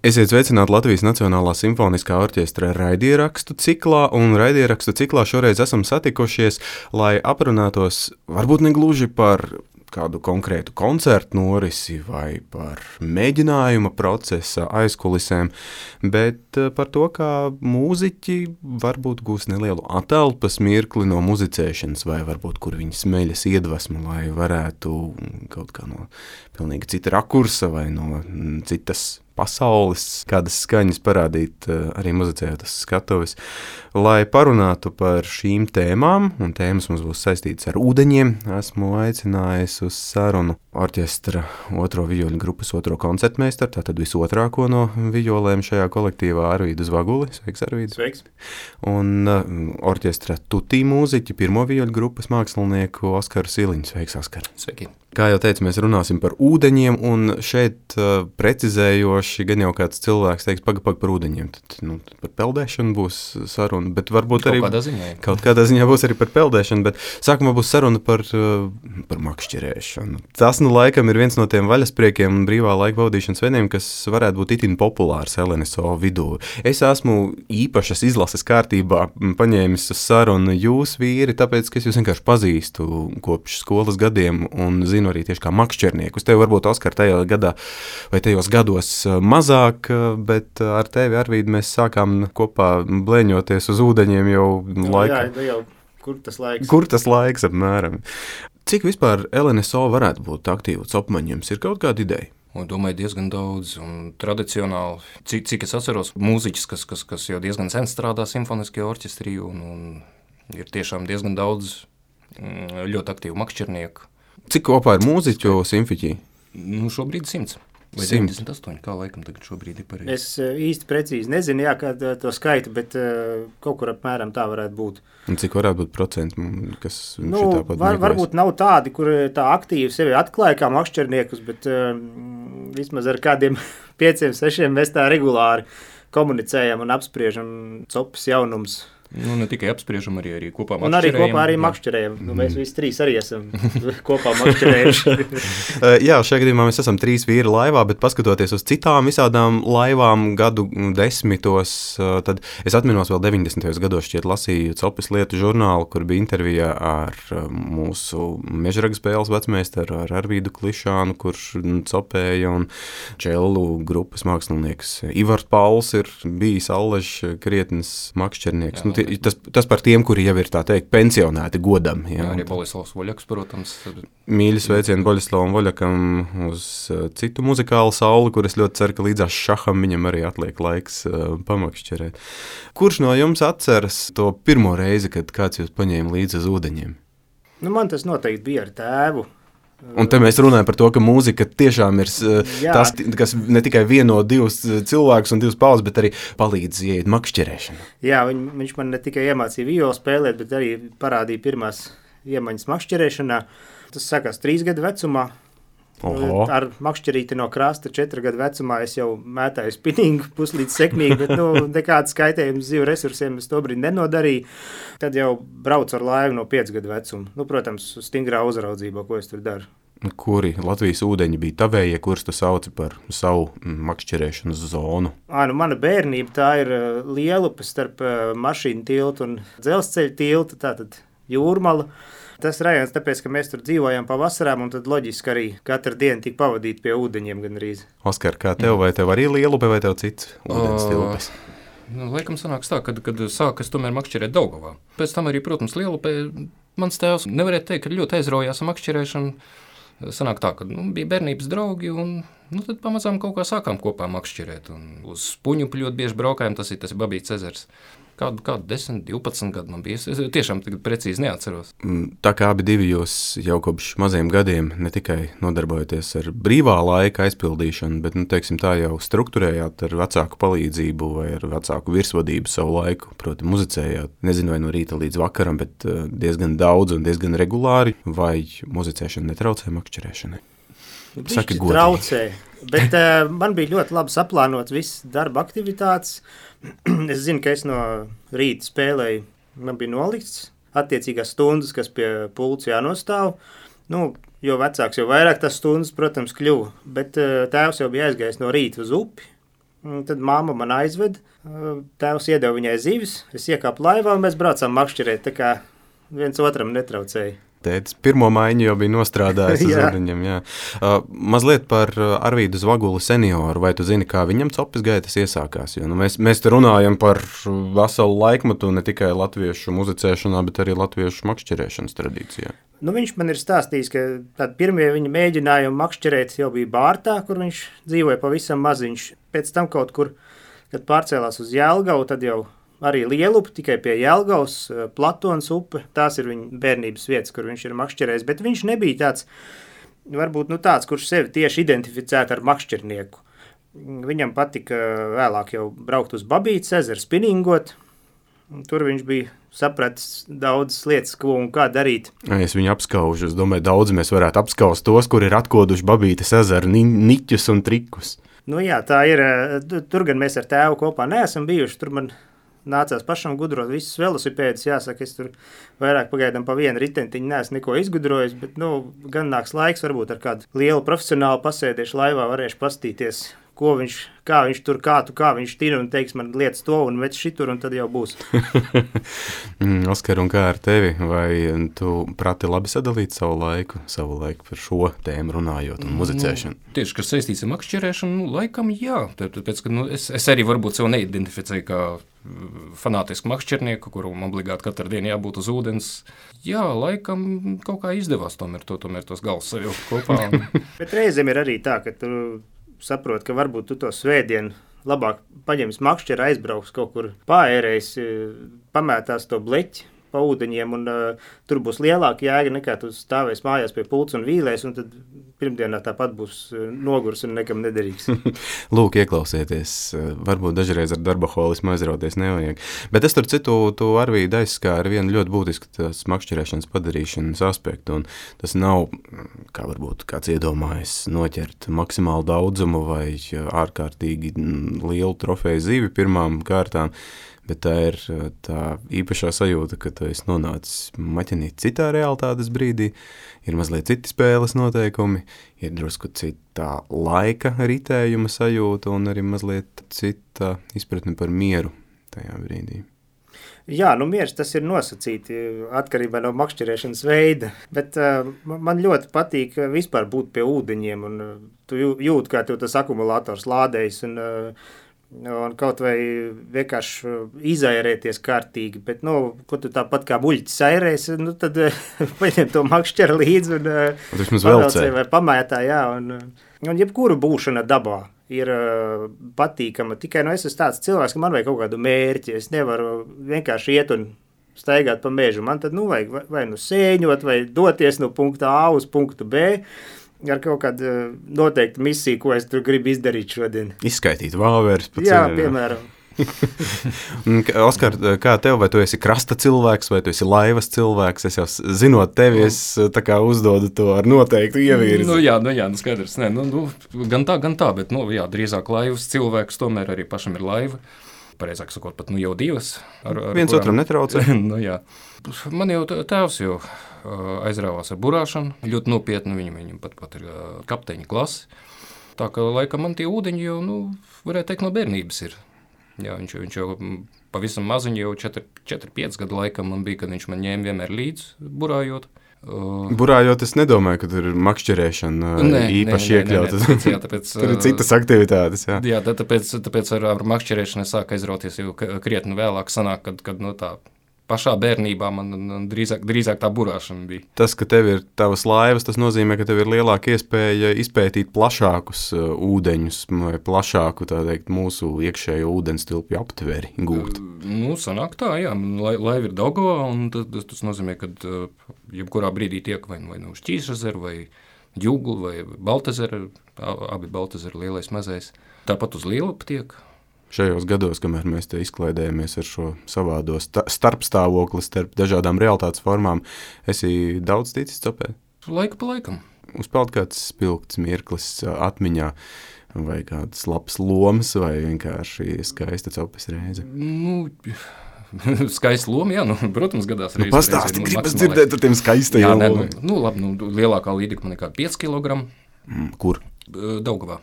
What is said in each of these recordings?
Esiet sveicināti Latvijas Nacionālā simfoniskā orķestra raidierakstu ciklā, un raidierakstu ciklā šoreiz esam satikušies, lai aprunātos varbūt ne gluži par kādu konkrētu koncertu norisi vai par mēģinājuma procesa aizkulisēm, bet par to, kā mūziķi varbūt gūs nelielu atelpas mirkli no muzicēšanas, vai varbūt kur viņi smeļas iedvesmu, lai varētu kaut kā no pilnīgi cita rakursa vai no citas pasaules, kādas skaņas parādīt arī muzicējot uz skatuves, lai parunātu par šīm tēmām, un tēmas mums būs saistītas ar ūdeņiem. Esmu aicinājis uz sarunu orķestra otro vijoļu grupas otro koncertmeistaru, tātad visotrāko no vijolēm šajā kolektīvā Arvīdu Zvaguli. Sveiks, Arvīds. Sveiks. Un orķestra tutī mūziķi pirmo vijoļu grupas mākslinieku Oskaru Siliņu. Sveiks, Oskar. Sveiki. Kā jau teicu, mēs runāsim par ūdeņiem, un šeit precizējoši gan jau kāds cilvēks teiks, paga par ūdeņiem, tad par peldēšanu būs saruna, bet varbūt arī kaut kādā ziņā būs arī par peldēšanu, bet sākumā būs saruna par makšķerēšanu. Tas laikam ir viens no tiem vaļaspriekiem un brīvā laika pavadīšanas veidiem, kas varētu būt itin populārs LNSO vidū. Es esmu īpašas izlases kārtībā paņēmis uz sarunu jūs vīri, tāpēc, ka es jūs vienkārši pazīstu kopš skolas gadiem un zinu arī tieši kā makšķerniekus. Tev varbūt, Oskar, tajā gadā vai tajos gados mazāk, bet ar tevi, Arvīd, mēs sākām kopā blēņoties uz ūdeņiem jau laikā. Jā, kur tas laiks? Kur tas laiks apmēram? Cik vispār LNSO varētu būt aktīvu copmaņums? Ir kaut kāda ideja? Domāju, diezgan daudz un tradicionāli. Cik es atceros, mūziķis, kas jau diezgan sen strādā simfoniskajā orķestrī un ir tiešām diezgan daudz ļoti aktīvu makšķernieku. Cik kopā ir mūziķu simfiķī? Šobrīd 100. Vai 100. 98, kā laikam tagad šobrīd ir pareizi. Es īsti precīzi nezinu, kā to skaitu, bet kaut kur apmēram tā varētu būt. Un cik varētu būt procenti, kas šitā pat meklēs? Varbūt nav tādi, kur tā aktīvi sevi atklāja kā makšķerniekus, bet vismaz ar kādiem 5-6 mēs tā regulāri komunicējam un apspriežam copas jaunums. Ne tikai apspriežam, arī kopā makšķerējam. Un arī kopā makšķerējam. Mēs visi trīs arī esam kopā makšķerējuši. Jā, šajā gadījumā mēs esam 3 vīri laivā, bet paskatoties uz citām visādām laivām gadu desmitos, tad es atminos vēl 90. gados šķiet lasīju Copas lietu žurnālu, kur bija intervija ar mūsu mežraga spēles vecmeistaru, ar Arvīdu Klišānu, kurš copēja, un čellu grupas mākslinieks Ivars Pauls ir bijis allaž krietnes makšķernieks. Tas par tiem, kuri jau ir, tā teikt, pensionēti godam. Jā, arī Boļislavs Voļaks, protams. Mīļi sveicieni Boļislavam Voļakam uz citu muzikālu sauli, kur es ļoti ceru, ka līdzās šaham viņam arī atliek laiks pamakšķerēt. Kurš no jums atceras to pirmo reizi, kad kāds jūs paņēma līdzi uz ūdeņiem? Man tas noteikti bija ar tēvu. Un te mēs runājam par to, ka mūzika tiešām ir tas, kas ne tikai vieno 2 cilvēkus un 2 paudzes, bet arī palīdz ieiet makšķerēšanu. Jā, viņš man ne tikai iemācīja violu spēlēt, bet arī parādīja pirmās iemaņas makšķerēšanā. Tas sākās 3 gadu vecumā. Oho. Ar makšķerīti no krasta 4 gadu vecumā es jau mētāju spinningu puslīdz sekmīgi, bet nekādas skaitējumas dzīvu resursiem es to brīdi nenodarīju. Tad jau braucu ar laivu no 5 gadu vecuma. Protams, stingrā uzraudzībā, ko es tur daru. Kuri Latvijas ūdeņi bija tavējie, kurus tu sauci par savu makšķerēšanas zonu? Mana bērnība tā ir Lielupe starp mašīnu tiltu un dzelzceļa tiltu, tātad Jūrmala. Tas rajons, tāpēc, ka mēs tur dzīvojam pavasarām, un tad loģiski arī katru dienu tika pavadīt pie ūdeņiem gandrīz. Oskar, kā tev, vai tev arī Lielupe, vai tev cits ūdens tilpes? Laikam sanāks tā, kad sākas tomēr makšķerēt Daugavā. Pēc tam arī, protams, Lielupe, mans tēvs nevarētu teikt, ka ļoti aizraujās ar makšķerēšanu. Sanāk tā, ka bija bērnības draugi, un tad pamazām kaut kā sākām kopā makšķerēt. Un uz Puņu ļoti bieži braukājām, tas ir Babīts ezers. Kādu 10, 12 gadu man bija. Es tiešām tagad precīzi neatceros. Tā kā abi divi jūs jau kopš maziem gadiem ne tikai nodarbojaties ar brīvā laika aizpildīšanu, bet, teiksim tā, jau strukturējāt ar vecāku palīdzību vai ar vecāku virsvadību savu laiku. Proti, muzicējāt, nezinu, vai no rīta līdz vakaram, bet diezgan daudz un diezgan regulāri, vai muzicēšana netraucē makšķerēšanai? Saki godīgi. Traucē, bet man bija ļoti labi saplānot visas darba aktivitātes. Es zinu, ka es no rīta spēlēju, man bija nolikts attiecīgās stundas, kas pie pulca jānostāv. Nu, jo vecāks, jo vairāk tas stundas, protams, kļuva. Bet tēvs jau bija aizgājis no rīta uz upi. Tad māma man aizved. Tēvs iedeva viņai zivis. Es iekāpu laivā un mēs braucām makšķerēt. Tā kā viens otram netraucēja. Tētis pirmo maiņu jau bija nostrādājis uz ūdeņiem. Mazliet par Arvīdu Zvaguli senioru. Vai tu zini, kā viņam copes gaitas iesākās? Jo, mēs te runājam par veselu laikmetu ne tikai latviešu muzicēšanā, bet arī latviešu makšķerēšanas tradīcijā. Viņš man ir stāstījis, ka pirmie viņa mēģinājumi makšķerēt jau bija Bārtā, kur viņš dzīvoja pavisam maziņš. Pēc tam kaut kur, kad pārcēlās uz Jelgavu, tad jau arī Lielupi, tikai pie Jelgavas, Platons upe. Tās ir viņa bērnības vietas, kur viņš ir makšķerējis. Bet viņš nebija tāds, varbūt tāds, kurš sevi tieši identificētu ar makšķernieku. Viņam patika vēlāk jau braukt uz Babītes ezeru, spinningot. Tur viņš bija sapratis daudzas lietas, ko un kā darīt. Es viņu apskaužu. Es domāju, daudz mēs varētu apskaust tos, kur ir atkoduši Babītes ezeru niķus un trikus. Jā, tā ir. Tur gan mēs ar tēvu kopā neesam bijuši. Tur man nācās pašam gudrot visus velosipēdus. Jāsaka, es tur vairāk pagaidām pa vienu ritentiņu neesmu neko izgudrojis, bet gan nāks laiks, varbūt ar kādu lielu profesionālu pasēdiešu laivā varēšu pastīties, kā viņš tina un teiks man lietas to un vec šitur, un tad jau būs. Oskar, un kā ar tevi? Vai tu prati labi sadalīt savu laiku par šo tēmu runājot un muzicēšanu? Tieši, kas saistīts ar makšķerēšanu, laikam jā. Tāpēc, ka es arī varbūt sev neidentificēju kā fanātisku makšķernieku, kuram obligāti katru dienu jābūt uz ūdens. Jā, laikam kaut kā izdevās tomēr tos galus savilkt kopā. Bet reizēm ir arī tā, ka tu saproti, ka varbūt tu to svētdienu labāk paņems makšķeri, aizbrauks kaut kur paērējis, pamētās to bleķi pa ūdeņiem, un tur būs lielāka jēga nekā tu stāvēs mājās pie pults un vīlēs, un tad pirmdienā tāpat būs nogurs un nekam nederīgs. Lūk, ieklausieties, varbūt dažreiz ar darbaholismu aizrauties nevajag. Bet es tur citu, tu Arvīdu aizskāri vienu ļoti būtisku tās makšķerēšanas padarīšanas aspektu, un tas nav, kā varbūt kāds iedomājas, noķert maksimālu daudzumu vai ārkārtīgi lielu trofeju zivi pirmām kārtām, bet tā ir tā īpašā sajūta, ka tu esi nonācis maķenīt citā realitātes brīdī, ir mazliet citi spēles noteikumi, ir drusku citā laika ritējuma sajūta un arī mazliet cita izpratne par mieru tajā brīdī. Jā, miers tas ir nosacīti atkarībā no makšķerēšanas veida, bet man ļoti patīk vispār būt pie ūdeņiem, un tu jūti, kā tev tas akumulators lādējas, un kaut vai vienkārši izairēties kārtīgi, bet, ko tu tāpat kā buļķis airēs, tad paņem to makšķeri līdzi un pavelcē vai pamētā, jā, un jebkuru būšana dabā ir patīkama, tikai, es esmu tāds cilvēks, ka man vajag kaut kādu mērķi, es nevaru vienkārši iet un staigāt pa mežu, man tad, vajag vai sēņot, vai doties no punkta A uz punktu B, ar kaut kādu noteiktu misiju, ko es tur gribu izdarīt šodien. Izskaitīt vāveres pa ceļu. Jā, piemēram. Oskar, kā tev, vai tu esi krasta cilvēks, vai tu esi laivas cilvēks? Es jau zinot tevi, es tā kā uzdodu to ar noteiktu ievirzi. Jā, skaidrs. Gan tā, bet, drīzāk laivas cilvēks, tomēr arī pašam ir laiva. Pareizāk sakot, pat jau divas. Viens otram netraucē. Jā. Man jau tēvs jau aizrāvās ar burāšanu, ļoti nopietni, viņam pat ir kapteiņa klase. Tā ka, laikam, man tie ūdeņi jau, varētu teikt, no bērnības ir. Jā, viņš jau pavisam maziņi, jau 4-5 gadu laikam man bija, kad viņš man ņēma vienmēr līdz burājot. Burājot, es nedomāju, ka tur ir makšķerēšana īpaši iekļauta. Tur ir citas aktivitātes. Jā, tāpēc ar makšķerēšanu es sāku aizrauties jau krietni vēlāk sanāk, kad tā pašā bērnībā man drīzāk tā burāšana bija. Tas, ka tev ir tavas laivas, tas nozīmē, ka tev ir lielāka iespēja izpētīt plašākus ūdeņus vai plašāku, tā teikt, mūsu iekšējo ūdens tilpju aptveri gūt. Sanāk tā, jā. Laiva ir Daugavā, un tas nozīmē, ka jebkurā brīdī tiek vai uz Ķīšezeru, vai Jūglu, vai Baltezeru, abi Baltezeru lielais mazais. Tāpat uz Lielupi tiek. Šajos gados, kamēr mēs te izklaidējamies ar šo savādo starpstāvokli starp dažādām realitātes formām, esi daudz ticis copēt? Laiku pa laikam. Uzpeld kāds spilgts mirklis atmiņā, vai kādas labas lomas, vai vienkārši skaista copes reize? skaista loma, jā, protams, gadās arī. Pastāsti, gribas dzirdēt ar tiem skaistajiem lomiem. Labi, lielākā līdika man ir kā 5 kg. Kur? Daugavā.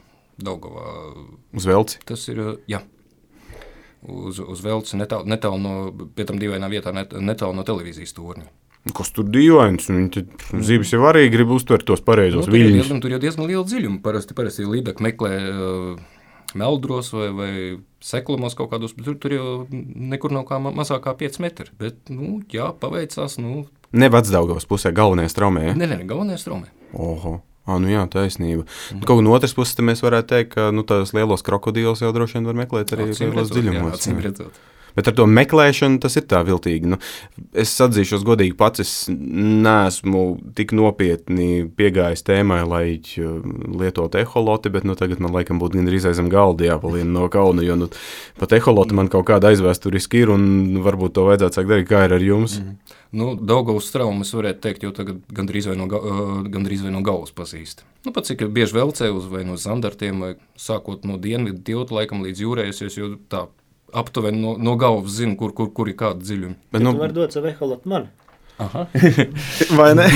Uz Velci? Tas ir, jā. Uz Velci, netālu no, pie tam dīvainā vietā, netālu no televīzijas torņa. Kas tur dīvains? Zibis jau arī grib uztvert tos pareizos viļņus. Tur jau diezgan liela dziļuma. Parasti līdaka meklē meldros vai seklumos kaut kādos, bet tur jau nekur nav kā mazākā 5 metri. Bet, jā, paveicās, Ne Vecdaugavas pusē, galvenajā straumē, ja? Ne, galvenajā straumē. Oho. Jā, taisnība. Kaut kā no otras puses mēs varētu teikt, ka tās lielos krokodīlus jau droši vien var meklēt arī lielos dziļumos. Acīm redzot. Bet ar to meklēšanu tas ir tā viltīgi. Es atzīšos godīgi pats, es neesmu tik nopietni piegājis tēmai, lai lietotu eholoti, bet tagad man laikam būtu gandrīz aizem galdi jāpalien no kauna, jo pat eholoti man kaut kāda aizvēsturiski ir un varbūt to vajadzētu sākt darīt, kā ir ar jums. Daugavas straumu es varētu teikt, jo tagad gandrīz vai no galvas pazīst. Pat cik bieži Velcē vai no Zandartiem, vai sākot no dienvidu tilta laikam līdz jūrējusies, jo tā aptuveni no galvas zinu, kur ir kāda dziļuma. Bet tu var dot savu eholotu man. Aha. Vai ne?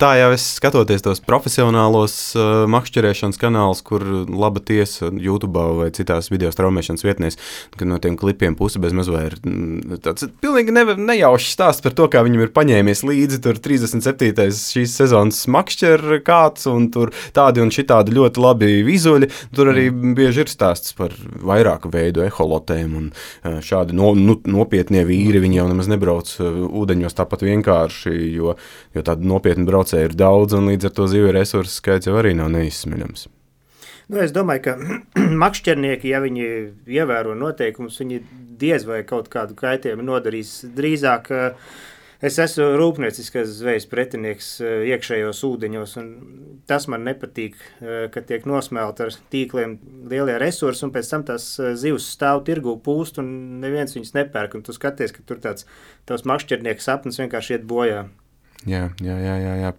Tā jau es skatoties tos profesionālos makšķerēšanas kanālus, kur laba tiesa YouTube vai citās video straumēšanas vietnēs, kad no tiem klipiem pusi bez maz vai ir tāds pilnīgi nejaušs stāsts par to, kā viņam ir paņēmies līdzi tur 37. šīs sezonas makšķer kāds un tur tādi un šitādi ļoti labi vizuļi. Tur arī bieži ir stāsts par vairāku veidu eholotēm un šādi nopietnie vīri, viņi jau nemaz nebrauc ūdeņos tāpat vienkārši, jo tādi nopietni braucēji ir daudz, un līdz ar to zivju resursu skaits jau arī nav neizsmeļams. Es domāju, ka makšķernieki, ja viņi ievēro noteikumus, viņi diez vai kaut kādu kaitējumu nodarīs. Drīzāk es esmu rūpnieciskas zvejas pretinieks iekšējos ūdeņos, un tas man nepatīk, ka tiek nosmelt ar tīkliem lielie resursi, un pēc tam tās zivs stāv tirgū pūst, un neviens viņas nepērk, un tu skaties, ka tur tāds tavs makšķernieka sapnis vienkārši iet bojā. Jā,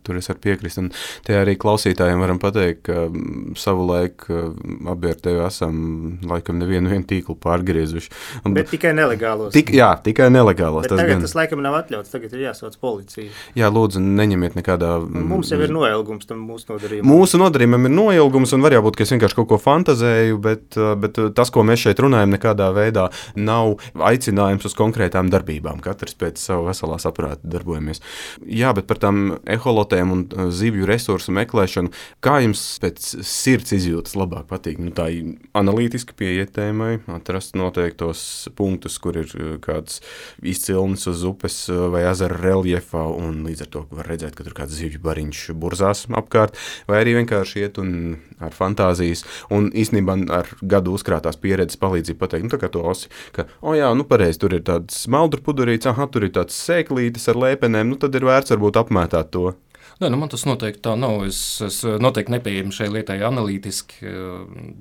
tur es varu piekrist. Un te arī klausītājiem varam pateikt, ka savu laiku abi ar tevi esam laikam nevienu tīklu pārgriezuši. Bet tikai nelegālos. Tikai nelegālos. Bet tagad tas laikam nav atļauts, tagad ir jāsauc policija. Jā, lūdzu, neņemiet nekādā... Mums jau ir noilgums tam mūsu nodarījumam. Mūsu nodarījumam ir noilgums, un var jābūt, ka es vienkārši kaut ko fantazēju, bet tas, ko mēs šeit runājam, nekādā veidā nav aicinājums uz konkrētām darbībām. Katrs pēc savu veselā saprāta darbojamies. Jā, bet par tām eholotēm un zivju resursu meklēšanu, kā jums pēc sirds izjūtas labāk patīk? Tā ir analītiski pieiet tēmai, atrast noteiktos punktus, kur ir kāds izcilnis uz upes vai ezera reljefā, un līdz ar to var redzēt, ka tur kāds zivju bariņš burzās apkārt, vai arī vienkārši iet un ar fantāzijas, un īstenībā ar gadu uzkrātās pieredzes palīdzību pateikt, tā kā to osi, ka, pareizi, tur ir tāds smeldru pudurīts, tur ir tāds sēklītis ar lēpenēm, tad ir vērts varbūt apmētāt to. Man tas noteikti tā nav. Es noteikti nepieejami šai lietai analītiski.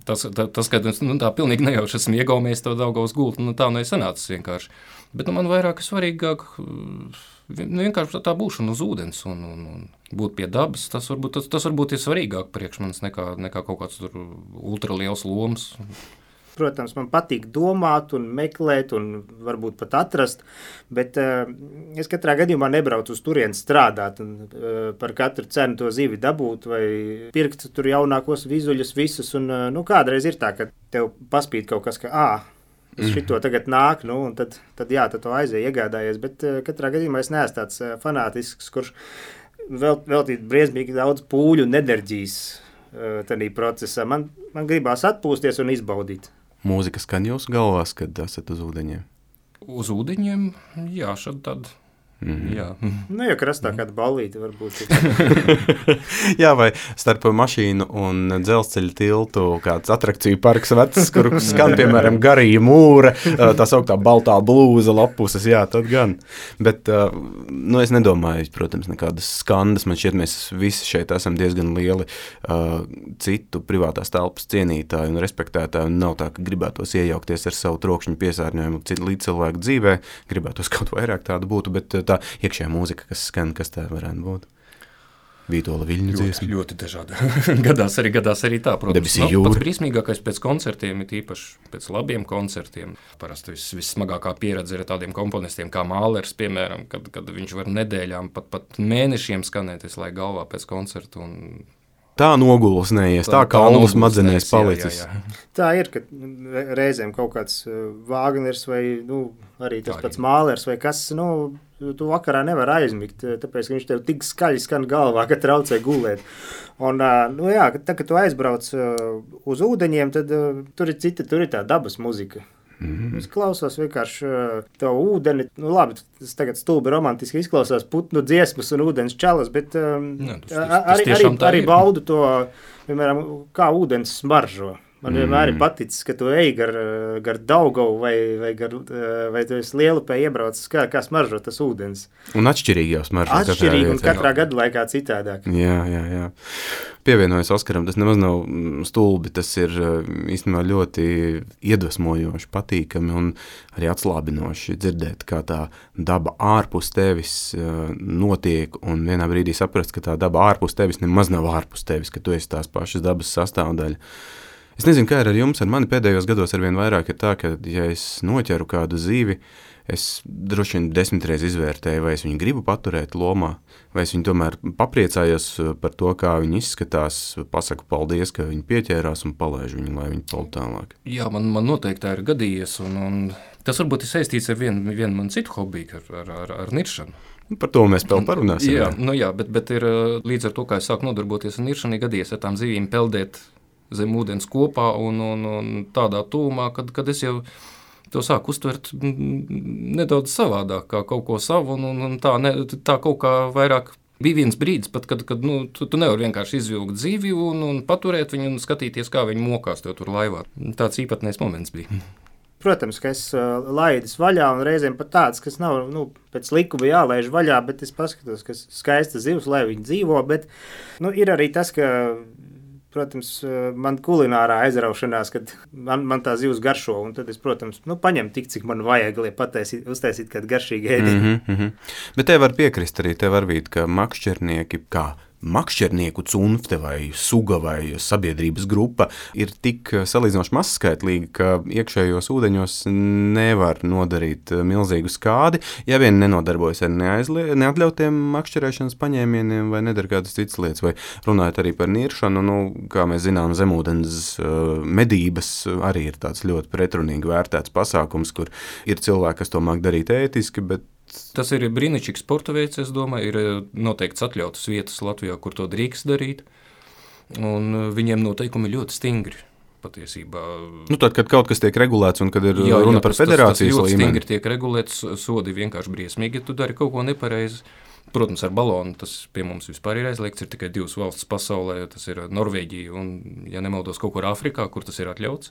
Tas ka tā pilnīgi nejauši esmu iegaumies to Daugavas gultu, tā nesanācis vienkārši. Bet man vairāk svarīgāk vienkārši tā būšana uz ūdens un būt pie dabas. Tas varbūt ir svarīgāk priekš manis nekā kaut kāds tur ultraliels lomas. Protams, man patīk domāt un meklēt un varbūt pat atrast, bet es katrā gadījumā nebraucu uz turieni strādāt un par katru cenu to zivi dabūt vai pirkt tur jaunākos vizuļus visus. Un, kādreiz ir tā, ka tev paspīd kaut kas, ka šito tagad nāk, un tad to aizēja iegādājies, bet katrā gadījumā es neesmu tāds fanātisks, kurš veltīt briesmīgi daudz pūļu un enerģijas tādā procesā. Man gribās atpūsties un izbaudīt. Mūzika skan jūsu galvās, kad esat uz ūdeņiem? Uz ūdeņiem, jā, šad tad. Jā. Ja krastā kāda ballīte varbūt. Jā, vai starp mašīnu un dzelzceļa tiltu kāds atrakciju parks vecs, kur skan, piemēram, garīja mūra, tā sauktā baltā blūza lapuses, jā, tad gan. Bet, es nedomāju, protams, nekādas skandas, man šķiet, mēs visi šeit esam diezgan lieli citu privātās telpas cienītāji un respektētāji, un nav tā, ka gribētos iejaukties ar savu trokšņu piesārņojumu līdz cilvēku dzīvē, gribētos kaut vairāk tādu būtu, bet tā iekšējā mūzika, kas skan, kas tā varētu būt? Vītola Viļņu dziesma. Ļoti dažādi. gadās arī tā, protams. Debesī jūra. Pats brīsmīgākais pēc koncertiem ir īpaši pēc labiem koncertiem. Parasti vissmagākā pieredze ir tādiem komponistiem kā Mālers, piemēram, kad viņš var nedēļām, pat mēnešiem skanēt, lai galvā pēc koncertu un tā nogulsnējies, tā kaulu smadzenēs palicis. Jā. Tā ir, ka reizēm kaut kāds Vāgners vai arī tas pats Mālers vai kas, tu vakarā nevar aizmigt, tāpēc, ka viņš tev tik skaļi skan galvā, ka traucē gulēt. Un, tā, kad tu aizbrauc uz ūdeņiem, tad tur ir tā dabas muzika. Es klausos vienkārši to ūdeni. Labi, tas tagad stulbi romantiski izklausās putnu dziesmas un ūdens čalas, bet arī baudu to, piemēram, kā ūdens smaržo. Man vienmēr ir paticis, ka tu ej gar Daugavu vai tu esi Lielupē iebraucis, kā smaržo tas ūdens. Un atšķirīgi jau smaržo. Atšķirīgi un katrā gadu laikā citādāk. Jā. Pievienojas Oskaram, tas nemaz nav stulbi, tas ir īstenībā ļoti iedvesmojoši, patīkami un arī atslābinoši dzirdēt, kā tā daba ārpus tevis notiek un vienā brīdī saprast, ka tā daba ārpus tevis nemaz nav ārpus tevis, ka tu esi tās pašas dabas sastāvdaļa. Es nezinu, kā ir ar jums, ar mani pēdējos gados arvien vairāk ir tā, ka, ja es noķeru kādu zīvi, es droši vien 10 reizes izvērtēju, vai es viņu gribu paturēt lomā, vai es viņu tomēr papriecājos par to, kā viņi izskatās, pasaku paldies, ka viņi pieķērās un palaižu viņu, lai viņi paldu tālāk. Jā, man noteikti tā ir gadījies, un tas varbūt ir saistīts ar vienu man citu hobiju, ar niršanu. Par to mēs vēl parunāsim. Jā, bet ir līdz ar to, kā es sāku nodarboties ar niršanu, gadījies ar tām zivīm peldēt zem ūdens kopā un tādā tūmā, kad es jau to sāku uztvert nedaudz savādāk, kā kaut ko savu, un tā kaut kā vairāk bija viens brīdis, pat, kad tu nevari vienkārši izvilkt zivi un paturēt viņu un skatīties, kā viņi mokās tev tur laivā. Tāds īpatnējs moments bija. Protams, ka es laidis vaļā un reizēm pat tāds, kas nav pēc likuma jālaiž vaļā, bet es paskatos, ka skaista zivs, lai viņi dzīvo, bet ir arī tas, ka protams, man kulinārā aizraušanās, kad man tā zivs garšo, un tad es, protams, paņemu tik, cik man vajag, lai uztaisīt kādu garšīgu ēdienu. Bet te var piekrist arī, te var būt, ka makšķernieki, kā makšķernieku cunfte vai suga vai sabiedrības grupa ir tik salīdzinoši mazskaitlīga, ka iekšējos ūdeņos nevar nodarīt milzīgu skādi, ja vien nenodarbojas ar neatļautiem makšķerēšanas paņēmieniem vai nedara kādas citas lietas, vai runājot arī par niršanu, kā mēs zinām, zemūdens medības arī ir tāds ļoti pretrunīgi vērtēts pasākums, kur ir cilvēki, kas to māk darīt ētiski, bet tas ir brīnišķīgs sporta veids, es domāju, ir noteikts atļautas vietas Latvijā, kur to drīkst darīt, un viņiem noteikumi ļoti stingri patiesībā. Tad, kad kaut kas tiek regulēts un kad ir runa par federācijas līmeni. Tas ļoti stingri tiek regulēts, sodi vienkārši briesmīgi, ja tu dari kaut ko nepareizi. Protams, ar balonu tas pie mums vispār ir aizliegts, ir tikai 2 valstis pasaulē, tas ir Norvēģija un, ja nemaldos, kaut kur Āfrikā, kur tas ir atļauts.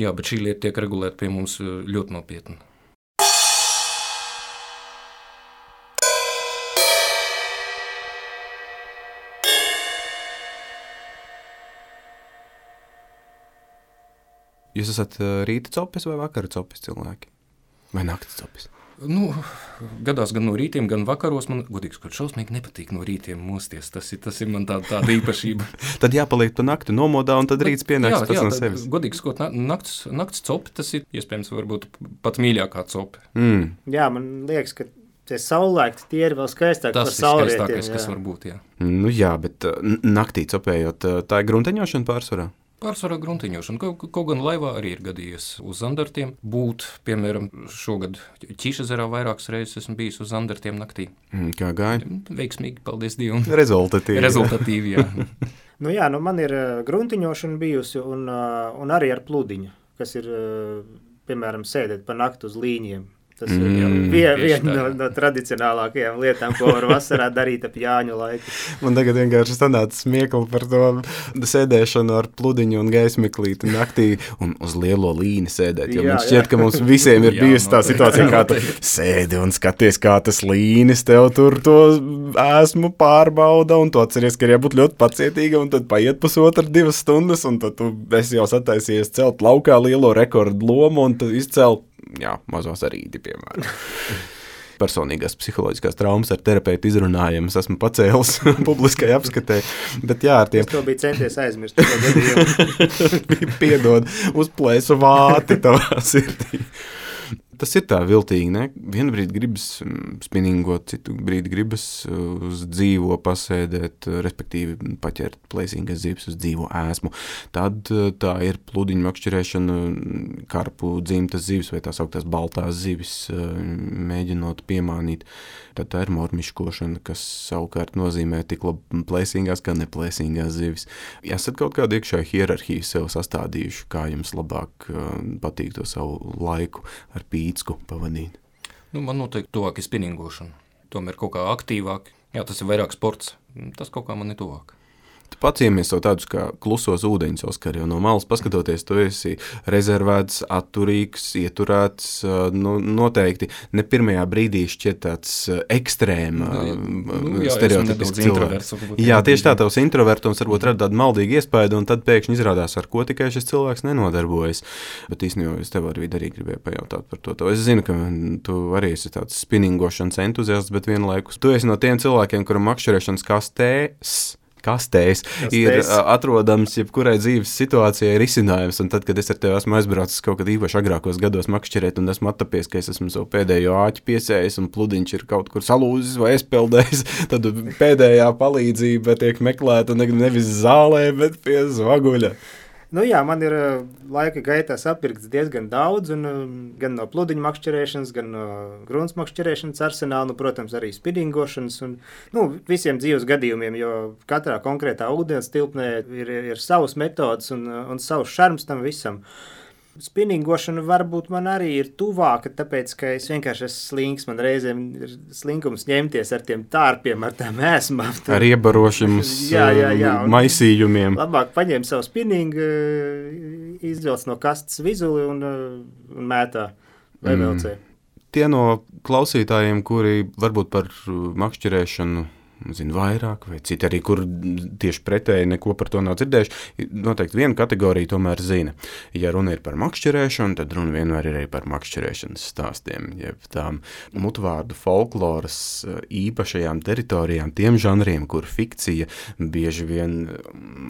Jā, bet šī lieta tiek regulēta pie mums ļoti nopietni. Jūs esat rīta copis vai vakara copis cilvēki? Vai naktas copis? Gadās gan no rītiem, gan vakaros. Man, godīgi sakot, šausmīgi nepatīk no rītiem mosties. Tas ir man tāda īpašība. Tad jāpaliek tu nakti nomodā, un tad rīts pienāks pats no sevis. Godīgi sakot, nakts copi, tas ir iespējams varbūt pat mīļākā copi. Jā, man liekas, ka tie saulaikti tie ir vēl skaistāki par saulrietiem. Tas ir skaistākais, kas var būt, jā. Jā, bet naktī copējot, tā ir grunteņošana pārsvarā? Pārsvarā gruntiņošana. Kaut gan laivā arī ir gadījies uz zandartiem būt. Piemēram, šogad Ķīšezerā vairākas reizes esmu bijis uz zandartiem naktī. Kā gāja? Veiksmīgi, paldies Dievam. Rezultatīvi, jā. Man ir gruntiņošana bijusi un arī ar pludiņu, kas ir, piemēram, sēdēt pa naktu uz līņiem. Tas ir viena no tradicionālākajām lietām, ko var vasarā darīt ap Jāņu laiku. Man tagad vienkārši sanāca smiekli par to sēdēšanu ar pludiņu un gaismeklīti naktī un uz lielo līni sēdēt. Jo man šķiet, ka mums visiem ir bijusi tā situācija, kā tu sēdi un skaties, kā tas līnis tev tur to ēsmu pārbauda, un tu atceries, ka ir jābūt ļoti pacietīga, un tad paiet 1,5–2 stundas, un tad tu esi jau sataisies celt laukā lielo rekordu lomu, un tad izcelt mazos arīdi, piemēram. personīgās psiholoģiskās traumas ar terapeitu izrunājumus esmu pacēlis publiskai apskatē. Bet jā, ar tiem... Es to biju centies aizmirst. Piedod, uzplēsu vāti tavā sirdī. Tas ir tā viltīgi, ne? Vienu brīdi gribas spinningot, citu brīdi gribas uz dzīvo pasēdēt, respektīvi paķert plēsīgas zivis uz dzīvo ēsmu. Tad tā ir pludiņu makšķerēšana, karpu dzimtas zivis vai tās augtās baltās zivis, mēģinot piemānīt. Tad tā ir mormiškošana, kas savukārt nozīmē tik labi plēsīgās, kā neplēsīgās zivis. Esat kaut kādu iekšēju hierarhiju sev sastādījuši, kā jums labāk patīk to savu laiku ar pīcku pavadīt? Man noteikti tuvāk ir spinningošana. Tomēr kaut kā aktīvāk. Jā, tas ir vairāk sports. Tas kaut kā man ir tuvāk. Tu paciemies savu tādus kā klusos ūdeņus, Oskar, jo no malas paskatoties, tu esi rezervēts, atturīgs, ieturēts, noteikti ne pirmajā brīdī šķiet tāds ekstrēma stereotipisks cilvēks. Jā, tieši tā, tavs introvertums varbūt rada tādu maldīgu iespaidu, un tad pēkšņi izrādās, ar ko tikai šis cilvēks nenodarbojas. Bet īstenībā es tev arī gribēju pajautāt par to. Es zinu, ka tu arī esi tāds spinningošanas entuziasts, bet vienlaikus tu esi no tiem cilvēkiem, kuram makšķerēšanas kastēs ir atrodams jebkurai dzīves situācijai risinājums, un tad, kad es ar tevi esmu aizbraucis kaut kad īpaši agrākos gados makšķerēt, un esmu attapies, ka es esmu savu pēdējo āķi piesējis, un pludiņš ir kaut kur salūzis vai aizpeldējis, tad pēdējā palīdzība tiek meklēta nevis zālē, bet pie zvaguļa. Jā, man ir laika gaitā sapirkts diezgan daudz, un gan no pludiņu makšķerēšanas, gan no grunts makšķerēšanas arsenāla, protams, arī spinningošanas un visiem dzīves gadījumiem, jo katrā konkrētā ūdens tilpnē ir savas metodas un savs šarms tam visam. Spinningošana varbūt man arī ir tuvāka, tāpēc, ka es vienkārši esmu slinks, man reizēm ir slinkums ņemties ar tiem tārpiem, ar tām ēsmām. Ar iebarošiem maisījumiem. Labāk paņem savu spinningu, izvelc no kastes vizuli un mētā vai velcē. Tie no klausītājiem, kuri varbūt par makšķerēšanu zina vairāk, vai citi arī, kur tieši pretēji neko par to nav dzirdējuši, noteikti viena kategorija tomēr zina. Ja runa ir par makšķerēšanu, tad runa vienmēr ir arī par makšķerēšanas stāstiem, jeb tām mutvārdu folkloras īpašajām teritorijām, tiem žanriem, kur fikcija bieži vien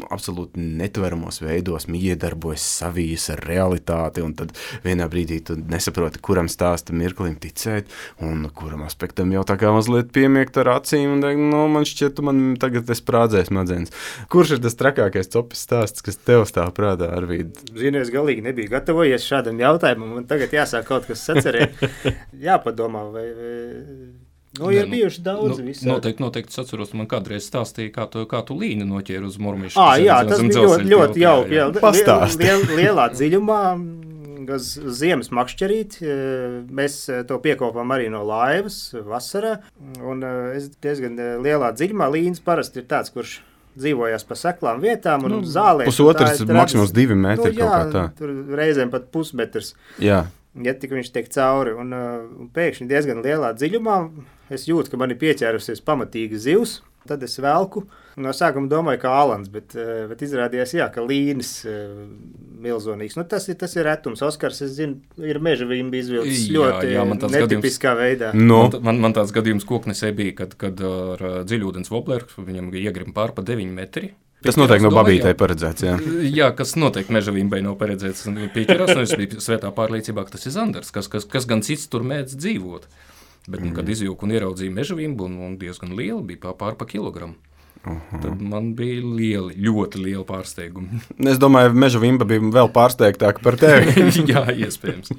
absolūti netveramos veidos iedarbojas savijas ar realitāti, un tad vienā brīdī tu nesaproti, kuram stāsta mirklim ticēt, un kuram aspektam jau tā kā mazliet piemiegt ar acīm, un man šķiet, man tagad sprādzēs smadzenes. Kurš ir tas trakākais copis stāsts, kas tev stāv prātā, Arvīd? Zinu, es galīgi nebiju gatavojies šādam jautājumam, man tagad jāsāk kaut kas sacerēt. Jāpadomā, vai... ir bijuši daudz visādi. Noteikti atceros, man kādreiz stāstīja, kā tu līni noķēri uz murmišu. Jā, tas bija ļoti jauki. Pastāst. Lielā dziļumā, uz ziemas makšķerīt, mēs to piekopām arī no laivas vasarā, un es diezgan lielā dziļumā līnis parasti ir tāds, kurš dzīvojās pa seklām vietām un zālēs. Pusotrs, maksimums 2 metri kaut kā tā. Tur reizēm pat pusmetrs. Jā. Ja tik viņš tiek cauri, un pēkšņi diezgan lielā dziļumā es jūtu, ka man ir pieķērusies pamatīga zivs, tad es velku. No sākuma domāju, ka Alans, bet izrādījās, ka līnis milzonīgs. Tas ir retums. Oskars, es zinu, ir meža vimbi izvilcis ļoti netipiskā veidā. Man tāds gadījums koknesē bija, kad ar dziļūdens wobleru viņam iegrima pār pa 9 metri. Tas noteikti no babītei paredzēts, jā. Jā, kas noteikti meža vimbai nav paredzēts. Pieķerās, es biju svētā pārliecībā, ka tas ir zandars, kas gan cits tur mēdz dzīvot. Bet, kad izjūku un ieraudzīju meža vimbu, un diezgan liela, bija pār pa kilogramu. Tad man bija ļoti liela pārsteiguma. Es domāju, meža vimba bija vēl pārsteigtāka par tevi. Jā, iespējams.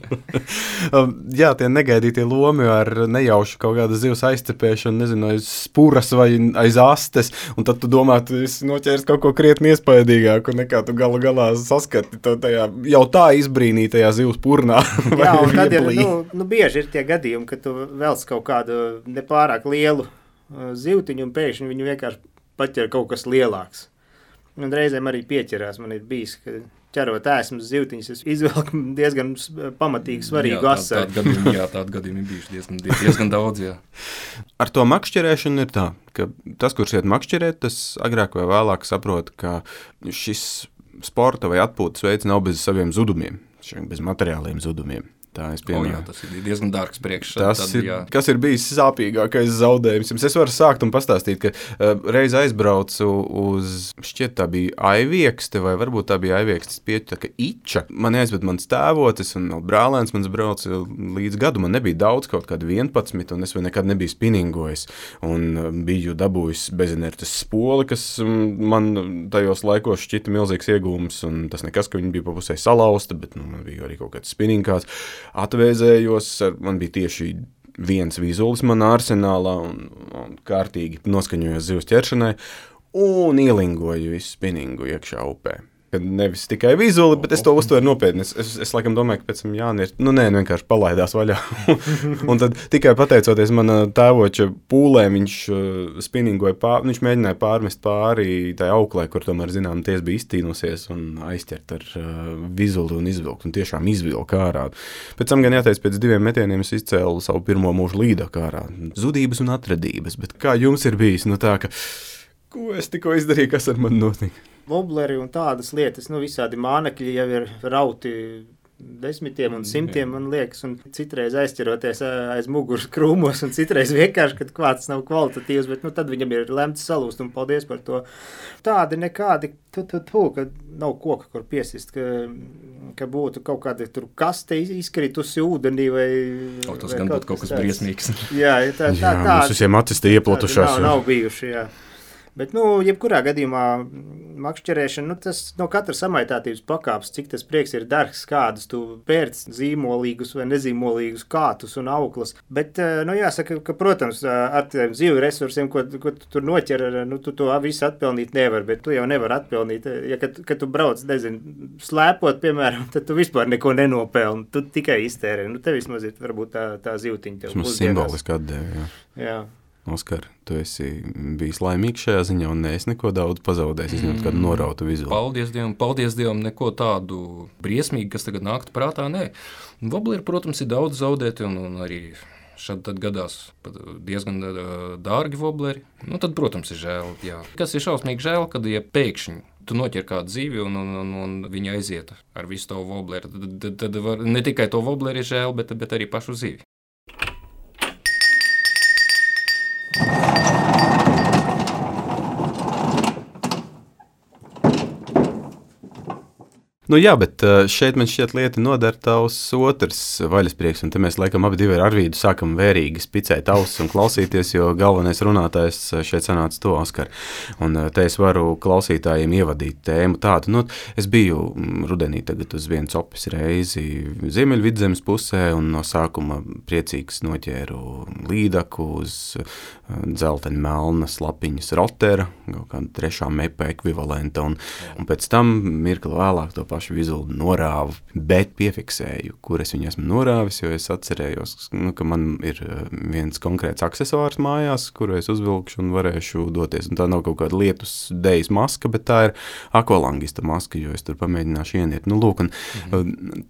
Jā, tie negaidītie lomi ar nejaušu kaut kādu zivs aizcepēšanu, nezinu, aiz spuras vai aiz astes, un tad tu domā, tu esi noķēris kaut ko krietni iespaidīgāku, nekā tu galā saskati to tajā jau tā izbrīnītajā zivs purnā. Jā, un tad ir, bieži ir tie gadījumi, ka tu velc kaut kādu nepārāk lielu zivtiņu, un pēkšņi viņu vienkārši paķer kaut kas lielāks. Un reizēm arī pieķerās. Man ir bijis, ka ķerot ēsmas zivtiņas, es izvelku diezgan pamatīgi svarīgu asaru. Tādi gadījumi ir bijuši diezgan daudz, jā. Ar to makšķerēšanu ir tā, ka tas, kurš iet makšķerēt, tas agrāk vai vēlāk saprot, ka šis sporta vai atpūtas veids nav bez saviem zudumiem, bez materiāliem zudumiem. Tā es Jā, piemēru. tas ir diezgan dārgs priekš. Kas ir bijis sāpīgākais zaudējums? Es varu sākt un pastāstīt, ka reiz aizbraucu uz, šķiet tā bija Aiviekste, vai varbūt tā bija Aiviekstes pieķaka Iča. Man aizved mans tēvotis un brālēns mans brauca līdz gadu. Man nebija daudz, kaut kādi 11, un es vēl nekad nebiju spiningojis. Un biju dabūjis bezinertes spoli, kas man tajos laikos šķita milzīgs iegūms, un tas nekas, ka viņi bija pa pusē salauzta, bet man bija arī kaut kāds spinningkāds. Atvēzējos, man bija tieši viens vizulis manā arsenālā un kārtīgi noskaņojos zivs ķeršanai un ielingoju visu spinningu iekšā upē. Kad nevis tikai vizuli, bet es to uztveru nopietni. Es laikam domāju, ka pēc tam Jānis vienkārši palaidās vaļā. Un tad tikai pateicoties mana tēvoča pūlēm, viņš spinningoja viņš mēģināja pārmest pāri tai auklē, kur tomēr, zinām, ties bija iztīnusies un aizķert ar vizuli un izvilkt. Un tiešām izvilka ārā. Pēc tam gan jāteic, pēc 2 metieniem es izcēlu savu pirmo mūžu līdaku ārā. Zudības un atradības. Bet kā jums ir bijis? Tā, ka, ko es tikko izdarīju, kas ar mani notika? Wobleri un tādas lietas, visādi mānekļi jau ir rauti 10 un 100, man liekas, un citreiz aizķeroties aiz muguras krūmos, un citreiz vienkārši, kad kvārts nav kvalitatīvs, bet tad viņam ir lemts salūst, un paldies par to. Tādi nekādi, ka nav koka, kur piesist, ka būtu kaut kāda tur kaste izkritusi ūdenī vai... Tas gan būtu kaut kas briesmīgs. Jā, mums visiem acis tie ieplatušās. Nav bijuši, jā. Bet, jebkurā gadījumā makšķerēšana, tas no katras samaitātības pakāpes, cik tas prieks ir dārgs, kādus tu pērc zīmolīgus vai nezīmolīgus kātus un auklas. Bet, jāsaka, ka, protams, ar tiem zivju resursiem, ko tu tur noķer, tu to visu atpelnīt nevar, bet tu jau nevar atpelnīt. Ja, kad tu brauc, slēpot, piemēram, tad tu vispār neko nenopelni, tu tikai iztērē. Tev vismaz ir varbūt tā zivtiņa tev. Mums simboliski atdeva, jā. Oskar, tu esi bijis laimīgs šajā ziņā un neesi neko daudz pazaudējis, izņemot kādu norautu vizuli. Paldies Dievam, neko tādu briesmīgu, kas tagad nāktu prātā, nē. Wobleri, protams, ir daudz zaudēti un arī šad tad gadās diezgan dārgi wobleri. Tad, protams, ir žēl, jā. Kas ir šausmīgi žēl, kad, ja pēkšņi tu noķer kādu zivi un viņa aiziet ar visu to wobleri, tad ne tikai to wobleri ir žēl, bet arī pašu zivi. Jā, bet šeit man šķiet lieta nodara tavs otrs vaļasprieks, un te mēs laikam abi divi ar Arvīdu sākam vērīgi spicēt ausis un klausīties, jo galvenais runātājs šeit sanāca to, Oskar. Un te es varu klausītājiem ievadīt tēmu tādu. Es biju rudenī tagad uz vienu copis reizi Ziemeļvidzemes pusē, un no sākuma priecīgs noķēru līdaku uz dzelteņa melnas lapiņas rotera, kaut kāda 3. mepa ekvivalenta, un pēc tam mirkli vēlāk to pašu vizuli norāvu, bet piefiksēju, kur es viņu esmu norāvis, jo es atcerējos, ka man ir viens konkrēts aksesuārs mājās, kuru es uzvilkšu un varēšu doties. Un tā nav kaut kāda lietus dejas maska, bet tā ir akvalangista maska, jo es tur pamēģināšu ieniet. Lūk, un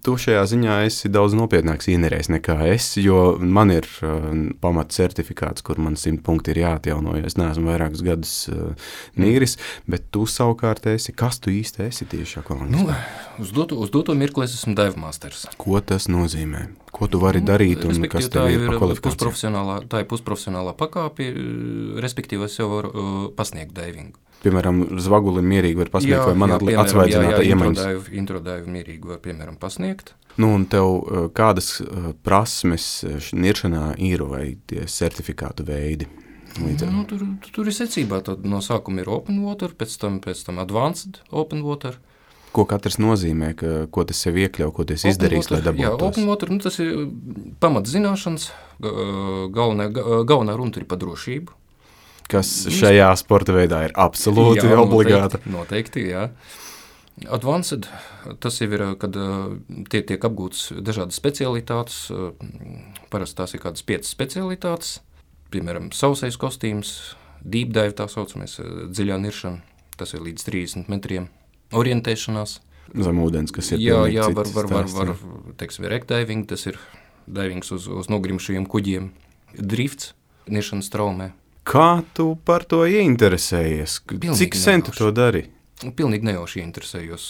tu šajā ziņā esi daudz nopietnāks ienerējs nekā es, jo man ir pamat certifikāts, kur man 100 punkti ir jāatjauno, jo es neesmu vairākus gadus nīris, bet tu savukārt esi, kas tu īsti esi tieši akvalangistā? Uz doto mirkli es esmu dive masters. Ko tas nozīmē? Ko tu vari darīt un kas tev ir pa kvalifikāciju? Tā ir pusprofesionālā pakāpe, respektīvi es jau varu pasniegt divingu. Piemēram, zvagulim mierīgi var pasniegt vai man atsvaidzinātā iemaņas? Introdaivu mierīgi var, piemēram, pasniegt. Un tev kādas prasmes niršanā ir vai tie certifikātu veidi? Tur ir secībā. Tad no sākuma ir open water, pēc tam advanced open water. Ko katrs nozīmē, ko tas sev iekļauj, ko tas izdarīs, lai dabūtos? Jā, open water, tas ir pamatzināšanas, galvenā runa ir par drošību. Kas šajā sporta veidā ir absolūti obligāta. Noteikti, jā. Advanced, tas jau ir, kad tiek apgūtas dažādas specialitātes, parasti tās ir kādas 5 specialitātes, piemēram, sausais kostīms, deep dive tā saucamies, dziļā niršana, tas ir līdz 30 metriem. Orientēšanās. Zem ūdens, kas ir jā, var teiksim, wreckdiving, tas ir divings uz nogrimšajiem kuģiem. Drifts, niršanas traumē. Kā tu par to ieinteresējies? Cik sen tu to dari? Pilnīgi nejauši interesējos.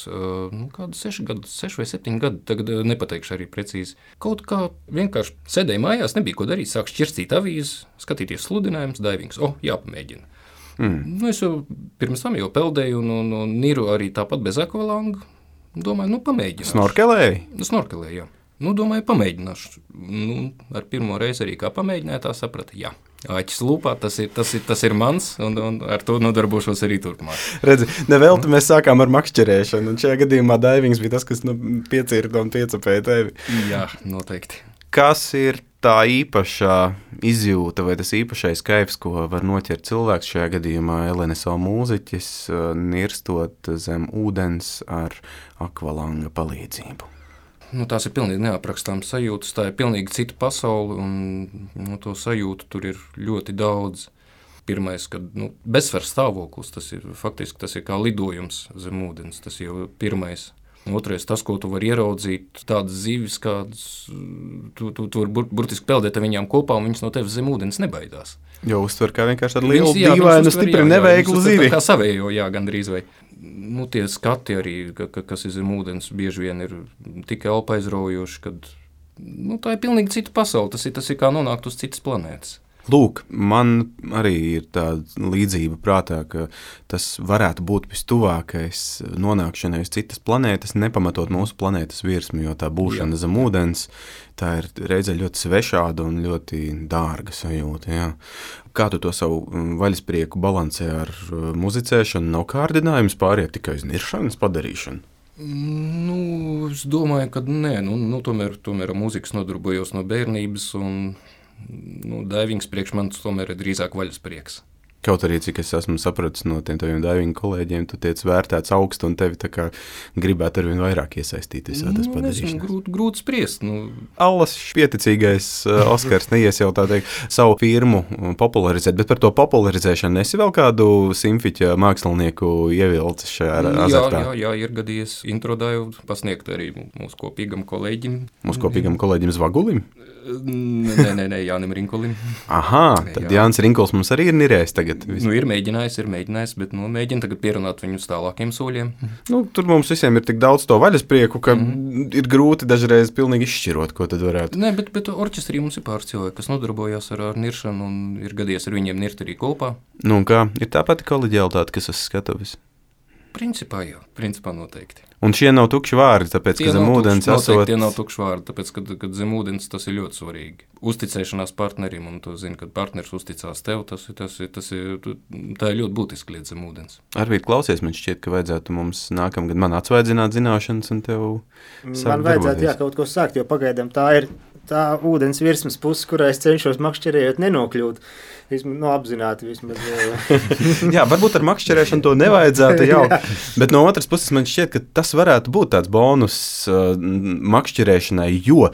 Kādu 6 vai 7 gadu, tagad nepateikšu arī precīzi. Kaut kā vienkārši sēdēju mājās, nebija ko darīt, sāku šķirstīt avīzes, skatīties sludinājumus, daivings. Jāpamēģina. Es jau pirms tam jau peldēju un niru arī tāpat bez akvalanga. Domāju, pamēģināšu. Snorkelēji? Snorkelēju, jā. Domāju, pamēģināšu. Ar pirmo reizi arī kā pamēģināju, tā saprata, jā. Āķis lūpā, tas ir mans, un ar to nodarbošos arī turpmāk. Redzi, nevelti mēs sākām ar makšķerēšanu, un šajā gadījumā daivings bija tas, kas piecirta un piecapēja tevi. Jā, noteikti. Kas ir tā īpašā izjūta vai tas īpašais kaifs, ko var noķert cilvēks šajā gadījumā LNSO mūziķis, nirstot zem ūdens ar akvalanga palīdzību? Tās ir pilnīgi neaprakstāmas sajūtas, tā ir pilnīgi cita pasaule, un to sajūtu tur ir ļoti daudz. Pirmais, kad bezsvars stāvoklis, tas ir kā lidojums zem ūdens, tas jau pirmais. Otrais, tas, ko tu vari ieraudzīt, tādas zivis, kādas tu vari burtiski peldēt ar viņām kopā, un viņas no tevis zem ūdens nebaidās. Jo uztver kā vienkārši tādu lielu dīvainu, stipri neveiklu zivi. Kā savējo, jā, gandrīz vai. Tie skati arī, kas ir zem ūdens, bieži vien ir tik elpaizraujoši, kad tā ir pilnīgi cita pasaule, tas ir kā nonākt uz citas planētas. Lūk, man arī ir tāda līdzība prātā, ka tas varētu būt vistuvākais nonākšanai uz citas planētas, nepamatot mūsu planētas virsmu, jo tā būšana zem ūdens, tā ir reizē ļoti svešāda un ļoti dārga sajūta. Jā. Kā tu to savu vaļasprieku balansē ar muzicēšanu? Nav kārdinājums pāriet tikai uz niršanas padarīšanu? Es domāju, ka nē. Tomēr ar mūzikas nodarbojos no bērnības, un daivings priekš manis tomēr ir drīzāk vaļasprieks. Kaut arī, cik es esmu sapratis no tiem taviem daivingu kolēģiem, tu tiec vērtēts augstu un tevi tā kā gribētu arvien vairāk iesaistīt visā tas padarīšanas. Grūti spriest. Allas pieticīgais Oskars neies jau tā teikt savu firmu popularizēt, bet par to popularizēšanu esi vēl kādu simfiķa mākslinieku ievilcis šajā azartā? Jā, ir gadījies introdāju pasniegt arī mūsu kopīgam kolēģim. Mūsu kopīgam kolēģim Zvagulim? Nē, Jānim Rinkulim. Aha, tad Jānis Rinkuls mums arī ir nirējis tagad. Ir mēģinājis, bet mēģina tagad pierunāt viņu uz tālākiem soļiem. Tur mums visiem ir tik daudz to vaļasprieku, ka ir grūti dažreiz pilnīgi izšķirot, ko tad varētu. Nē, bet orķestrī mums ir pāris cilvēki, kas nodarbojās ar niršanu, un ir gadījies ar viņiem nirt arī kopā. Un kā? Ir tā pati koleģialitāte, kas uz skatuves? Principā jā, noteikti. Un šie nav tukši vārdi, tāpēc, ka zem ūdens esot... Tie nav tukši vārdi, tāpēc, ka zem ūdens tas ir ļoti svarīgi. Uzticēšanās partnerim, un tu zini, kad partners uzticās tev, tā ir ļoti būtiska lieta zem ūdens. Arvīt, klausies, man šķiet, ka vajadzētu mums nākamgad man atsvaidzināt zināšanas un tev man vajadzētu, jā, kaut ko sākt, jo pagaidām tā ir tā ūdens virsmas puse, kurā es cenšos makšķerējot nenokļūt. Apzināti vismaz. Jā, varbūt ar makšķerēšanu to nevajadzētu jau, bet no otras puses man šķiet, ka tas varētu būt tāds bonus makšķerēšanai, jo,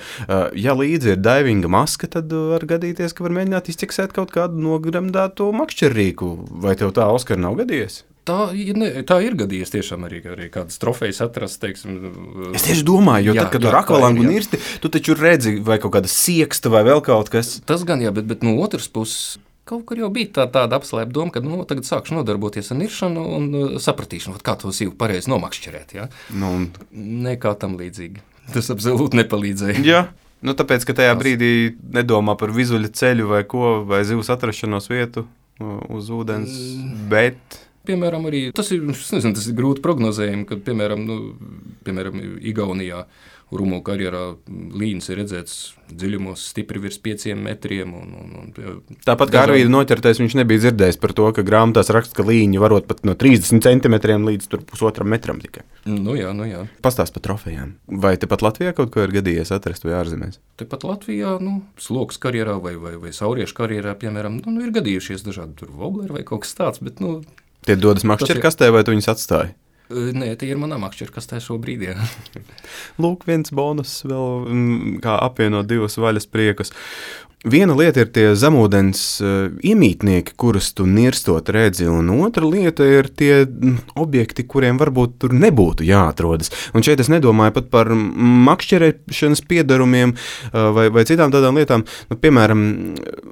ja līdzi ir daivinga maska, tad var gadīties, ka var mēģināt izķeksēt kaut kādu nogremdēto makšķerrīku. Vai tev tā, Oskar, nav gadījies? Tā ir gadījies tiešām arī kādas trofejas atrast, teiksim. Es tieši domāju, jo tad, kad tu ar akvalangu nirsti, tu taču redzi vai kaut kāda sieksta vai vēl kaut kas. Tas gan jā, bet no otras puses kaut kur jau bija tāda apslēpta doma, ka tagad sākšu nodarboties ar niršanu un sapratīšanu, kā to sivu pareizi nomakšķerēt. Ja? Nekā tam līdzīgi. Tas absolūti nepalīdzēja. Jā. Tāpēc, ka tajā brīdī nedomā par vizuļa ceļu vai ko, vai zivs atrašanos vietu uz ūdens, bet... Piemēram, arī tas ir grūti prognozējami, kad, piemēram, Igaunijā Rumu karjerā līnis ir redzēts dziļumos stipri virs 5 metriem. Tāpat kā Arvīda noķertais, viņš nebija dzirdējis par to, ka grāmatās raksta, ka līņi varot pat no 30 centimetriem līdz 1,5 metram tikai. Jā. Pastāst par trofejām. Vai tepat Latvijā kaut ko ir gadījies atrast vai ārzemēs? Tepat Latvijā, sloks karjerā vai sauriešu karjerā, piemēram, ir gadījušies dažādi tur wobleri vai kaut kas tāds, bet, Tie dodas makšķerkastē vai tu viņus atstāji? Nē, tie ir manā makšķerkastē šobrīd, jā. Lūk, viens bonus vēl, kā apvienot divus vaļaspriekus. Viena lieta ir tie zemūdens iemītnieki, kurus tu nirstot redzi, un otra lieta ir tie objekti, kuriem varbūt tur nebūtu jāatrodas. Un šeit es nedomāju pat par makšķerēšanas piedarumiem vai citām tādām lietām. Nu, piemēram,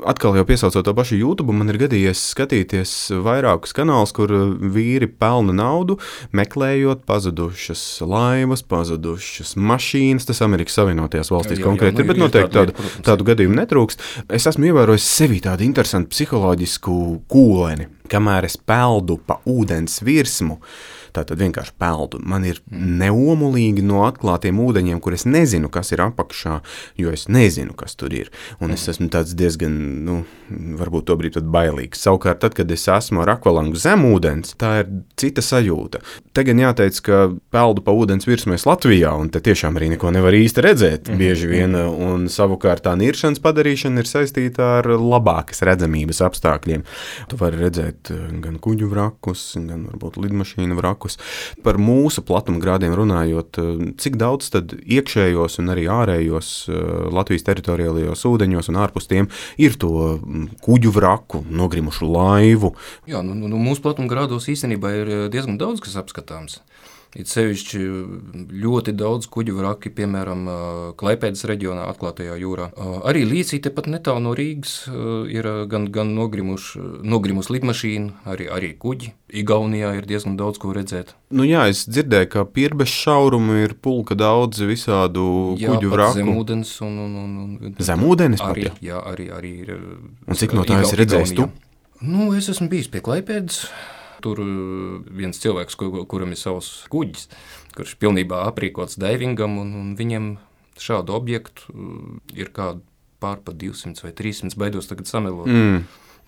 atkal jau piesaucot to pašu YouTube, man ir gadījies skatīties vairākus kanālus, kur vīri pelna naudu, meklējot pazudušas laivas, pazudušas mašīnas. Tas Amerikas Savienotajās valstīs konkrēti ir, bet noteikti tādu gadījumu netrūkst. Es esmu ievērojis sevī tādu interesantu psiholoģisku kūleni, kamēr es peldu pa ūdens virsmu. Tātad vienkārši peldu. Man ir neomulīgi no atklātiem ūdeņiem, kur es nezinu, kas ir apakšā, jo es nezinu, kas tur ir. Un es esmu tāds diezgan, varbūt tobrīd pat bailīgs. Savukārt, tad, kad es esmu ar akvalangu zem ūdens, tā ir cita sajūta. Te gan jāteic, ka peldu pa ūdens virsmu es Latvijā, un te tiešām arī neko nevar īsti redzēt bieži vien, un savukārt tā niršanas padarīšana ir saistīta ar labākas redzamības apstākļiem. Tu vari redzēt gan kuģu vrakus, gan varbūt lidmašīnu vrakus. Par mūsu platumgrādiem runājot, cik daudz tad iekšējos un arī ārējos Latvijas teritoriālajos ūdeņos un ārpus tiem ir to kuģu vraku, nogrimušu laivu? Jā, mūsu platumgrādos īstenībā ir diezgan daudz, kas apskatāms. Ir sevišķi ļoti daudz kuģu vraki, piemēram, Klaipēdas reģionā, atklātajā jūrā. Arī līdz tepat netālu no Rīgas ir gan nogrimusi lidmašīna, arī kuģi. Igaunijā ir diezgan daudz ko redzēt. Nu jā, es dzirdēju, ka pierbežu šaurumu ir pulka daudz visādu kuģu vraku. Jā, zemūdens un zemūdenes pat, arī, jā, arī ir. Un cik no tā esi redzējis tu? Es esmu bijis pie Klaipēdas. Tur viens cilvēks, kuram ir savs kuģis, kurš pilnībā aprīkots daivingam, un viņiem šādu objektu ir kādu pārpa 200 vai 300, baidos tagad samelot.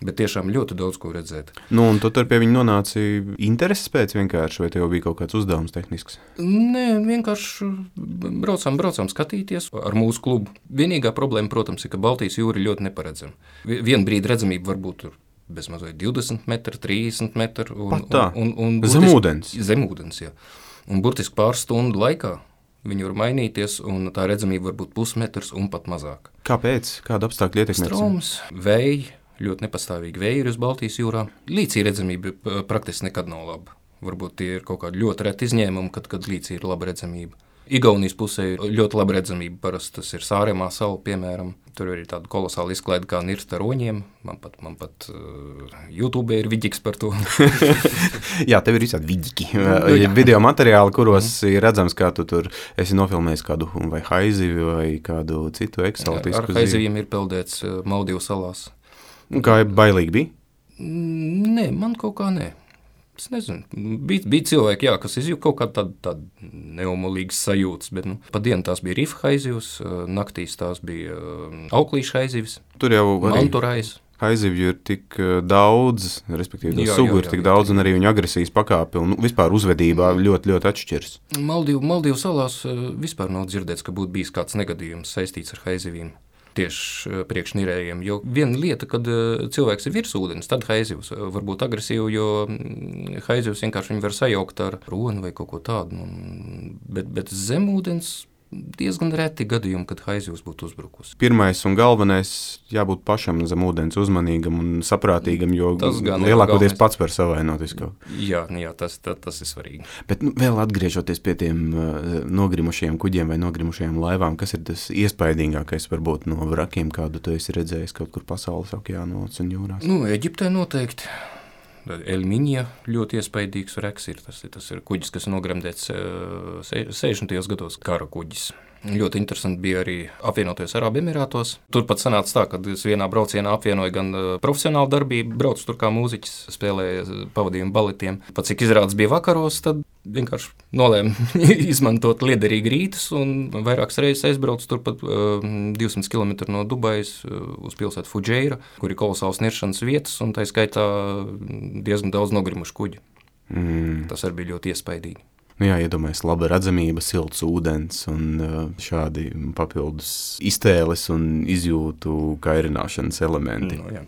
Bet tiešām ļoti daudz ko redzēt. Nu, un tu tur pie viņa nonāci intereses pēc vienkārši, vai tev bija kaut kāds uzdevums tehnisks? Nē, vienkārši braucām skatīties ar mūsu klubu. Vienīgā problēma, protams, ir, ka Baltijas jūra ir ļoti neparedzama. Vienu brīdi redzamība varbūt tur bezmazliet 20 metri, 30 metri. Zemūdens? Zemūdens, jā. Un burtiski pāris stundu laikā viņi var mainīties, un tā redzamība var būt pusmetrs un pat mazāk. Kāpēc? Kāda apstākļa ietekmē? Stroms, vēji, ļoti nepastāvīgi vēji ir uz Baltijas jūrā. Līcī redzamība praktiski nekad nav laba. Varbūt tie ir kaut kādi ļoti reti izņēmumi, kad līcī ir laba redzamība. Igaunijas pusē ļoti laba redzamība, parasti tas ir Sāremā sala, piemēram. Tur ir tāda kolosāla izklaide kā nirst ar roņiem. Man pat YouTube ir vidiks par to. Jā, tev ir visādi vidiki. Video materiāli, kuros ir redzams, kā tu tur esi nofilmējis kādu vai haizivi vai kādu citu eksotisku ar haiziviem ir peldēts Maldīvu salās. Kā bailīgi bija? Nē, man kaut kā nē. Es nezinu, bija cilvēki, kas izjūt kaut kādu tādu neomolīgas sajūtas, bet pa dienu tās bija rifa haizivs, naktīs tās bija auklīša haizivs, tur jau manturais. Haizivju ir tik daudz, respektīvi sugu ir tik daudz, un arī viņu agresijas pakāpe un vispār uzvedībā ļoti, ļoti atšķiras. Maldīvu salās vispār nav dzirdēts, ka būtu bijis kāds negadījums saistīts ar haizivīm. Tieši priekšnirējiem, jo viena lieta, kad cilvēks ir virs ūdens, tad haizivs var būt agresīvi, jo haizivs vienkārši viņu var sajaukt ar roni vai kaut ko tādu, bet zem ūdens diezgan reti gadījumi, kad haizivs būtu uzbrukusi. Pirmais un galvenais jābūt pašam zem ūdens uzmanīgam un saprātīgam, jo lielākoties pats var savainoties kaut. Jā, tas ir svarīgi. Bet vēl atgriežoties pie tiem nogrimušajiem kuģiem vai nogrimušajām laivām, kas ir tas iespaidīgākais varbūt no vrakiem, kādu tu esi redzējis kaut kur pasaules okeānos un jūrās? Eģiptē noteikti. Elmiņa ļoti iespaidīgs reks ir. Tas ir kuģis, kas nogremdēts 60. gados, kara kuģis. Ļoti interesanti bija arī apvienotajos Arābu Emirātos. Turpat sanāca tā, ka es vienā braucienā apvienoju gan profesionālu darbību, braucu tur kā mūziķis, spēlēju pavadījumu baletiem. Pat cik izrādes bija vakaros, tad vienkārši nolēmu izmantot liederīgi rītus un vairākas reizes aizbraucu turpat 200 km no Dubajas uz pilsētu Fudžeira, kur ir kolosāls niršanas vietas un tā skaitā diezgan daudz nogrimušu kuģi. Tas arī bija ļoti iespaidīgi. Nu jā, iedomājies, laba redzamība, silts ūdens un šādi papildus iztēles un izjūtu kairināšanas elementi. No, jā.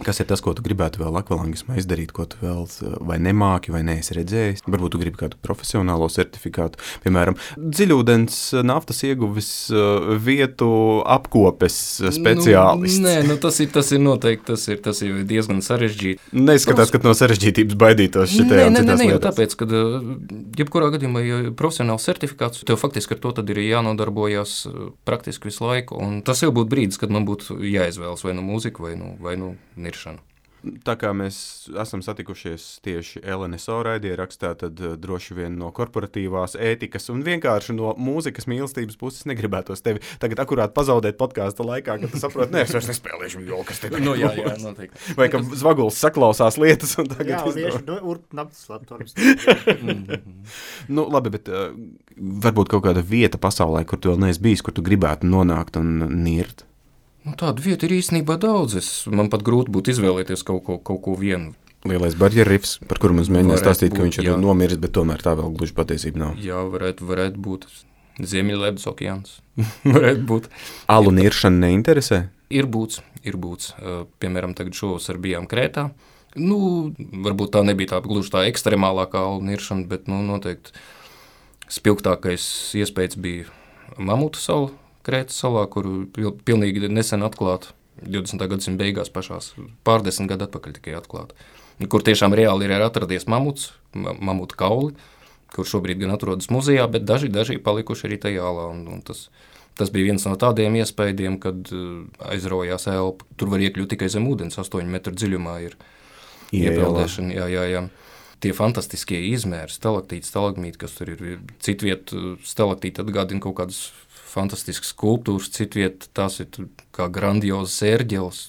Kas ir tas, ko tu gribētu vēl akvalangismā izdarīt, ko tu vēl vai nemāki, vai neesi redzējis? Varbūt tu gribi kādu profesionālo certifikātu, piemēram, dziļūdens naftas ieguves vietu apkopes speciālists. Tas ir noteikti, tas ir diezgan sarežģīti. Neizskatās, ka no sarežģītības baidītos šitajā un citās lietās. lietās. Tāpēc, kad jebkurā gadījumā, ja profesionāls certifikāts, tev faktiski ar to tad ir jānodarbojas praktiski visu laiku, un tas jau būtu brīdis, kad man būtu jāizvēlas vai nu mūzika, vai nu niršana. Tā kā mēs esam satikušies tieši LNSO raidierakstā, tad droši vien no korporatīvās ētikas un vienkārši no mūzikas mīlestības puses negribētos tevi tagad akurāt pazaudēt podkāsta laikā, kad tu saproti, es vairs nespēlēšu jo, kas te No, jā, noteikti. Vai ka Zvaguls saklausās lietas un tagad... Jā, un ieši urpnaptas laptorums. Nu, labi, bet varbūt kaut kāda vieta pasaulē, kur tu vēl neesi bijis, kur tu gribētu nonākt un nirt? Nu, tādu vietu ir īstenībā daudz. Man pat grūti būtu izvēlēties kaut ko vienu. Lielais barjeru rifs, par kuru mums mēģināja stāstīt, ka viņš ir nomiris, bet tomēr tā vēl gluži patiesība nav. Jā, varētu būt Ziemeļledus okeāns. Varētu būt. Alu niršana neinteresē? Ir būts. Piemēram, tagad šovasar bijām Krētā. Nu, varbūt tā nebija tā gluži tā ekstremālākā alu niršana, bet noteikti spilgtākais iespējas bija Mamutu salu. Krētas salā, kuru pilnīgi nesen atklāta, 20. gadsimta beigās pašās, pārdesmit gadu atpakaļ tikai atklāta, kur tiešām reāli ir atradies mamuta kauli, kur šobrīd gan atrodas muzejā, bet daži palikuši arī tajā alā, un tas bija viens no tādiem iespējiem, kad aizraujās elpa. Tur var iekļūt tikai zem ūdens, 8 metru dziļumā ir iepeldēšana, jā. Tie fantastiskie izmēri, stalaktīti, stalagmīti, kas tur ir, citviet stalaktīti atgādina kaut kādas fantastiskas skulptūras, citviet tās ir kā grandiozas ērģeles.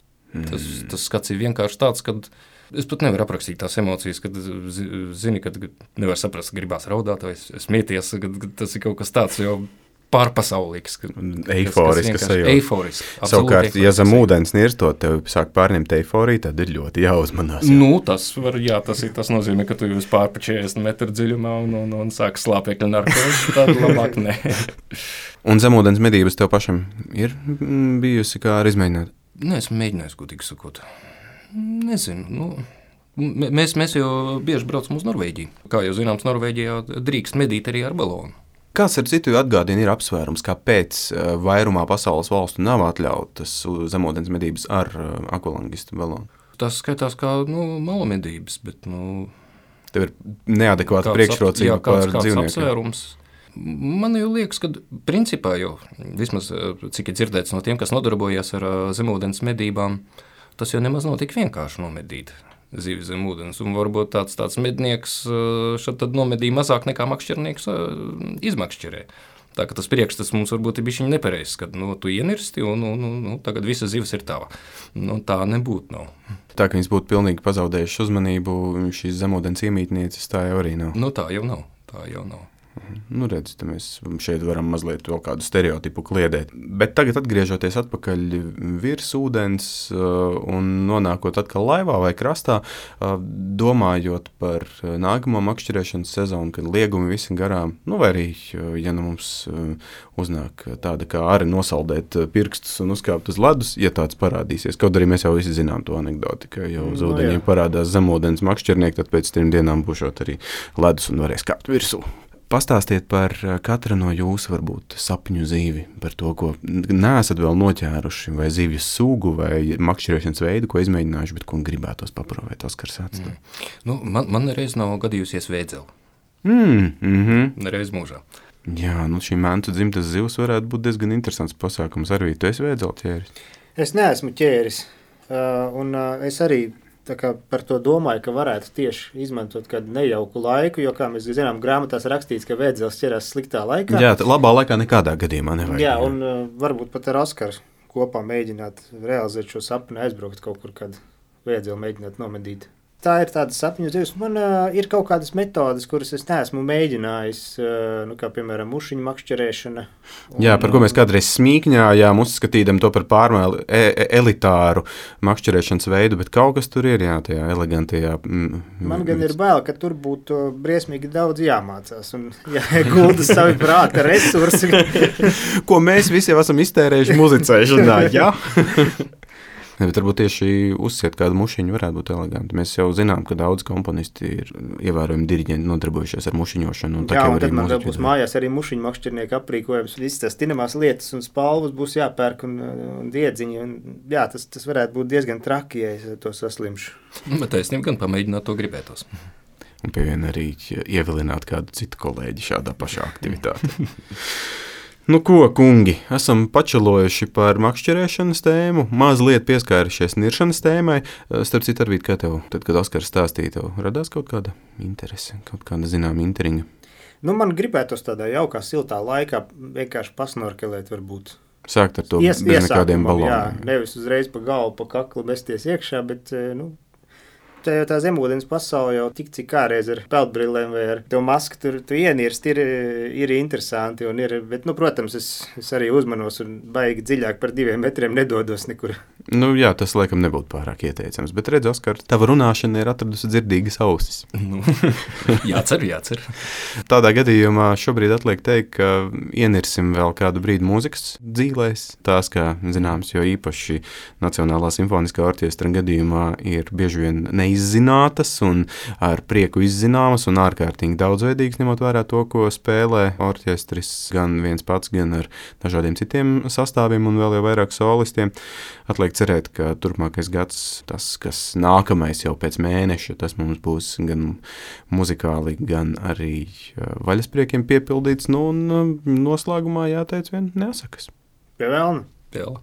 Tas skats ir vienkārši tāds, kad es pat nevaru aprakstīt tās emocijas, kad zini, kad nevar saprast, gribās raudāt vai smieties, kad tas ir kaut kas tāds jau pārpasaulīgs. Eiforisks sajūta. Eiforiski. Savukārt, ja zem ūdens nirstot, tev sāk pārņemt eiforiju, tad ir ļoti jāuzmanās. Jā. Nu, tas nozīmē, ka tu jūs pārpa 40 metru dziļumā un sāk slāpekļu narkozi, tad labāk ne. Un zemūdens medības tev pašam ir bijusi kā ar izmēģināt? Nē, esmu mēģinājis, godīgi sakot. Nezinu, mēs jau bieži braucam uz Norvēģiju. Kā jau zināms, Norvēģijā drīkst medīt arī ar balonu. Kāds ar citu atgādina ir apsvērums, kāpēc vairumā pasaules valstu nav atļautas zemūdens medības ar akvalangistu balonu? Tas skaitās kā malamedības, bet tev ir neadekvāta priekšrocība par dzīvniekiem. Apsvērums. Man jau liekas, ka principā jau, vismaz cik ir dzirdēts no tiem, kas nodarbojas ar zemūdens medībām, tas jau nemaz nav tik vienkārši nomedīt zivi zem ūdens. Un varbūt tāds mednieks šad tad nomedīja mazāk nekā makšķernieks izmakšķerē. Tā ka tas priekšstats mums varbūt ir bišķiņ nepareizs, kad tu ienirsti un tagad visa zivis ir tava. Tā nebūtu nav. Tā, ka viņas būtu pilnīgi pazaudējuši uzmanību, šīs zemūdens iemītnieces, tā jau arī nav. Tā jau nav. Nu, redz, mēs šeit varam mazliet vēl kādu stereotipu kliedēt. Bet tagad atgriežoties atpakaļ virs ūdens un nonākot atkal laivā vai krastā, domājot par nākamo makšķerēšanas sezonu, kad liegumi visi garām, vai arī, ja mums uznāk tāda kā arī nosaldēt pirkstus un uzkāpt uz ledus, ja tāds parādīsies. Kaut arī mēs jau visi zinām to anekdoti, ka jau uz ūdeņiem parādās zemūdens makšķernieki, tad pēc 3 dienām būšot arī ledus un varēs kāpt virsū. Pastāstiet par katru no jūsu varbūt sapņu zīvi, par to, ko neesat vēl noķēruši, vai zīvju sugu, vai makšķerēšanas veidu, ko izmēģinājuši, bet ko gribētos paprovēt, Oskars atstāj. Man nereiz nav gadījusies vēdzeli. Nereiz mūžā. Jā, šī Mentu dzimtas zivs varētu būt diezgan interesants pasākums. Arvī, tu esi vēdzeli ķēris? Es neesmu ķēris, un es arī tā kā par to domāju, ka varētu tieši izmantot kādu nejauku laiku, jo, kā mēs zinām, grāmatās rakstīts, ka vēdzelis ķerās sliktā laikā. Jā, labā laikā nekādā gadījumā nevajag. Jā, un varbūt pat ar Oskaru kopā mēģināt realizēt šo sapni, aizbraukt kaut kur, kad vēdzeli mēģināt nomedīt. tā ir tāda sapņu dzīves. Man ir kaut kādas metodas, kuras es neesmu mēģinājis, kā piemēram mušiņu makšķerēšana. Jā, par ko mēs kādreiz smīkņājām, uzskatījām to par pārmēr elitāru makšķerēšanas veidu, bet kaut kas tur ir, jā, tajā elegantajā. Man gan ir bail, ka tur būtu briesmīgi daudz jāmācās un jāiegulda savi prāta resursi. Ko mēs visi jau esam iztērējuši muzicēšanā, jā? Bet varbūt tieši uzsiet kādu mušiņu varētu būt eleganti. Mēs jau zinām, ka daudz komponisti ir ievērojami diriģenti nodarbojušies ar mušiņošanu. Jā, un tad man vēl būs mājās arī mušiņu makšķernieku aprīkojums. Visas tās tinamās lietas un spalvas būs jāpērk un diedziņi. Un, jā, tas varētu būt diezgan traki, ja es to saslimšu. Bet taisnība gan pamēģināt to gribētos. Un pie viena arī ievilināt kādu citu kolēģi šādā pašā aktivitātē. Nu ko, kungi, esam pačalojuši par makšķerēšanas tēmu, mazliet pieskārušies niršanas tēmai. Starp citu, Arvīd, kā tev, tad, kad Oskars stāstīja, tev radās kaut kāda interese, kaut kāda zināma intriga? Nu, man gribētos tādā jaukā, siltā laikā vienkārši pasnorkelēt varbūt. Sākt ar to bez nekādiem baloniem. Jā, nevis uzreiz pa galvu, pa kaklu mesties iekšā, bet, tā zemūdens pasaule jau tik cik kādreiz ar peldbrillēm vai ar to masku tur tu ienirst ir interesanti un ir, bet, protams, es arī uzmanos un baigi dziļāk par 2 metriem nedodos nekur. Nu jā, tas laikam nebūtu pārāk ieteicams, bet redz, Oskar, tava runāšana ir atradusi dzirdīgas ausis. Jācer. Tādā gadījumā šobrīd atliek teikt, ka ienirsim vēl kādu brīdi mūzikas dzīlēs. Tās, kā zināms, jo īpaši Nacionālā simfoniskā orķestra gadījumā ir bieži vien neizzinātas un ar prieku izzināmas un ārkārtīgi daudzveidīgas, ņemot vērā to, ko spēlē orķestris gan viens pats, gan ar dažādiem citiem sastāviem un vēl jau vairāk solistiem. Atliek cerēt, ka turpmākais gads, tas, kas nākamais jau pēc mēneša, tas mums būs gan muzikāli, gan arī vaļaspriekiem piepildīts. Nu, un noslēgumā jāteic vien nesakas. Pie velna. Pie velna.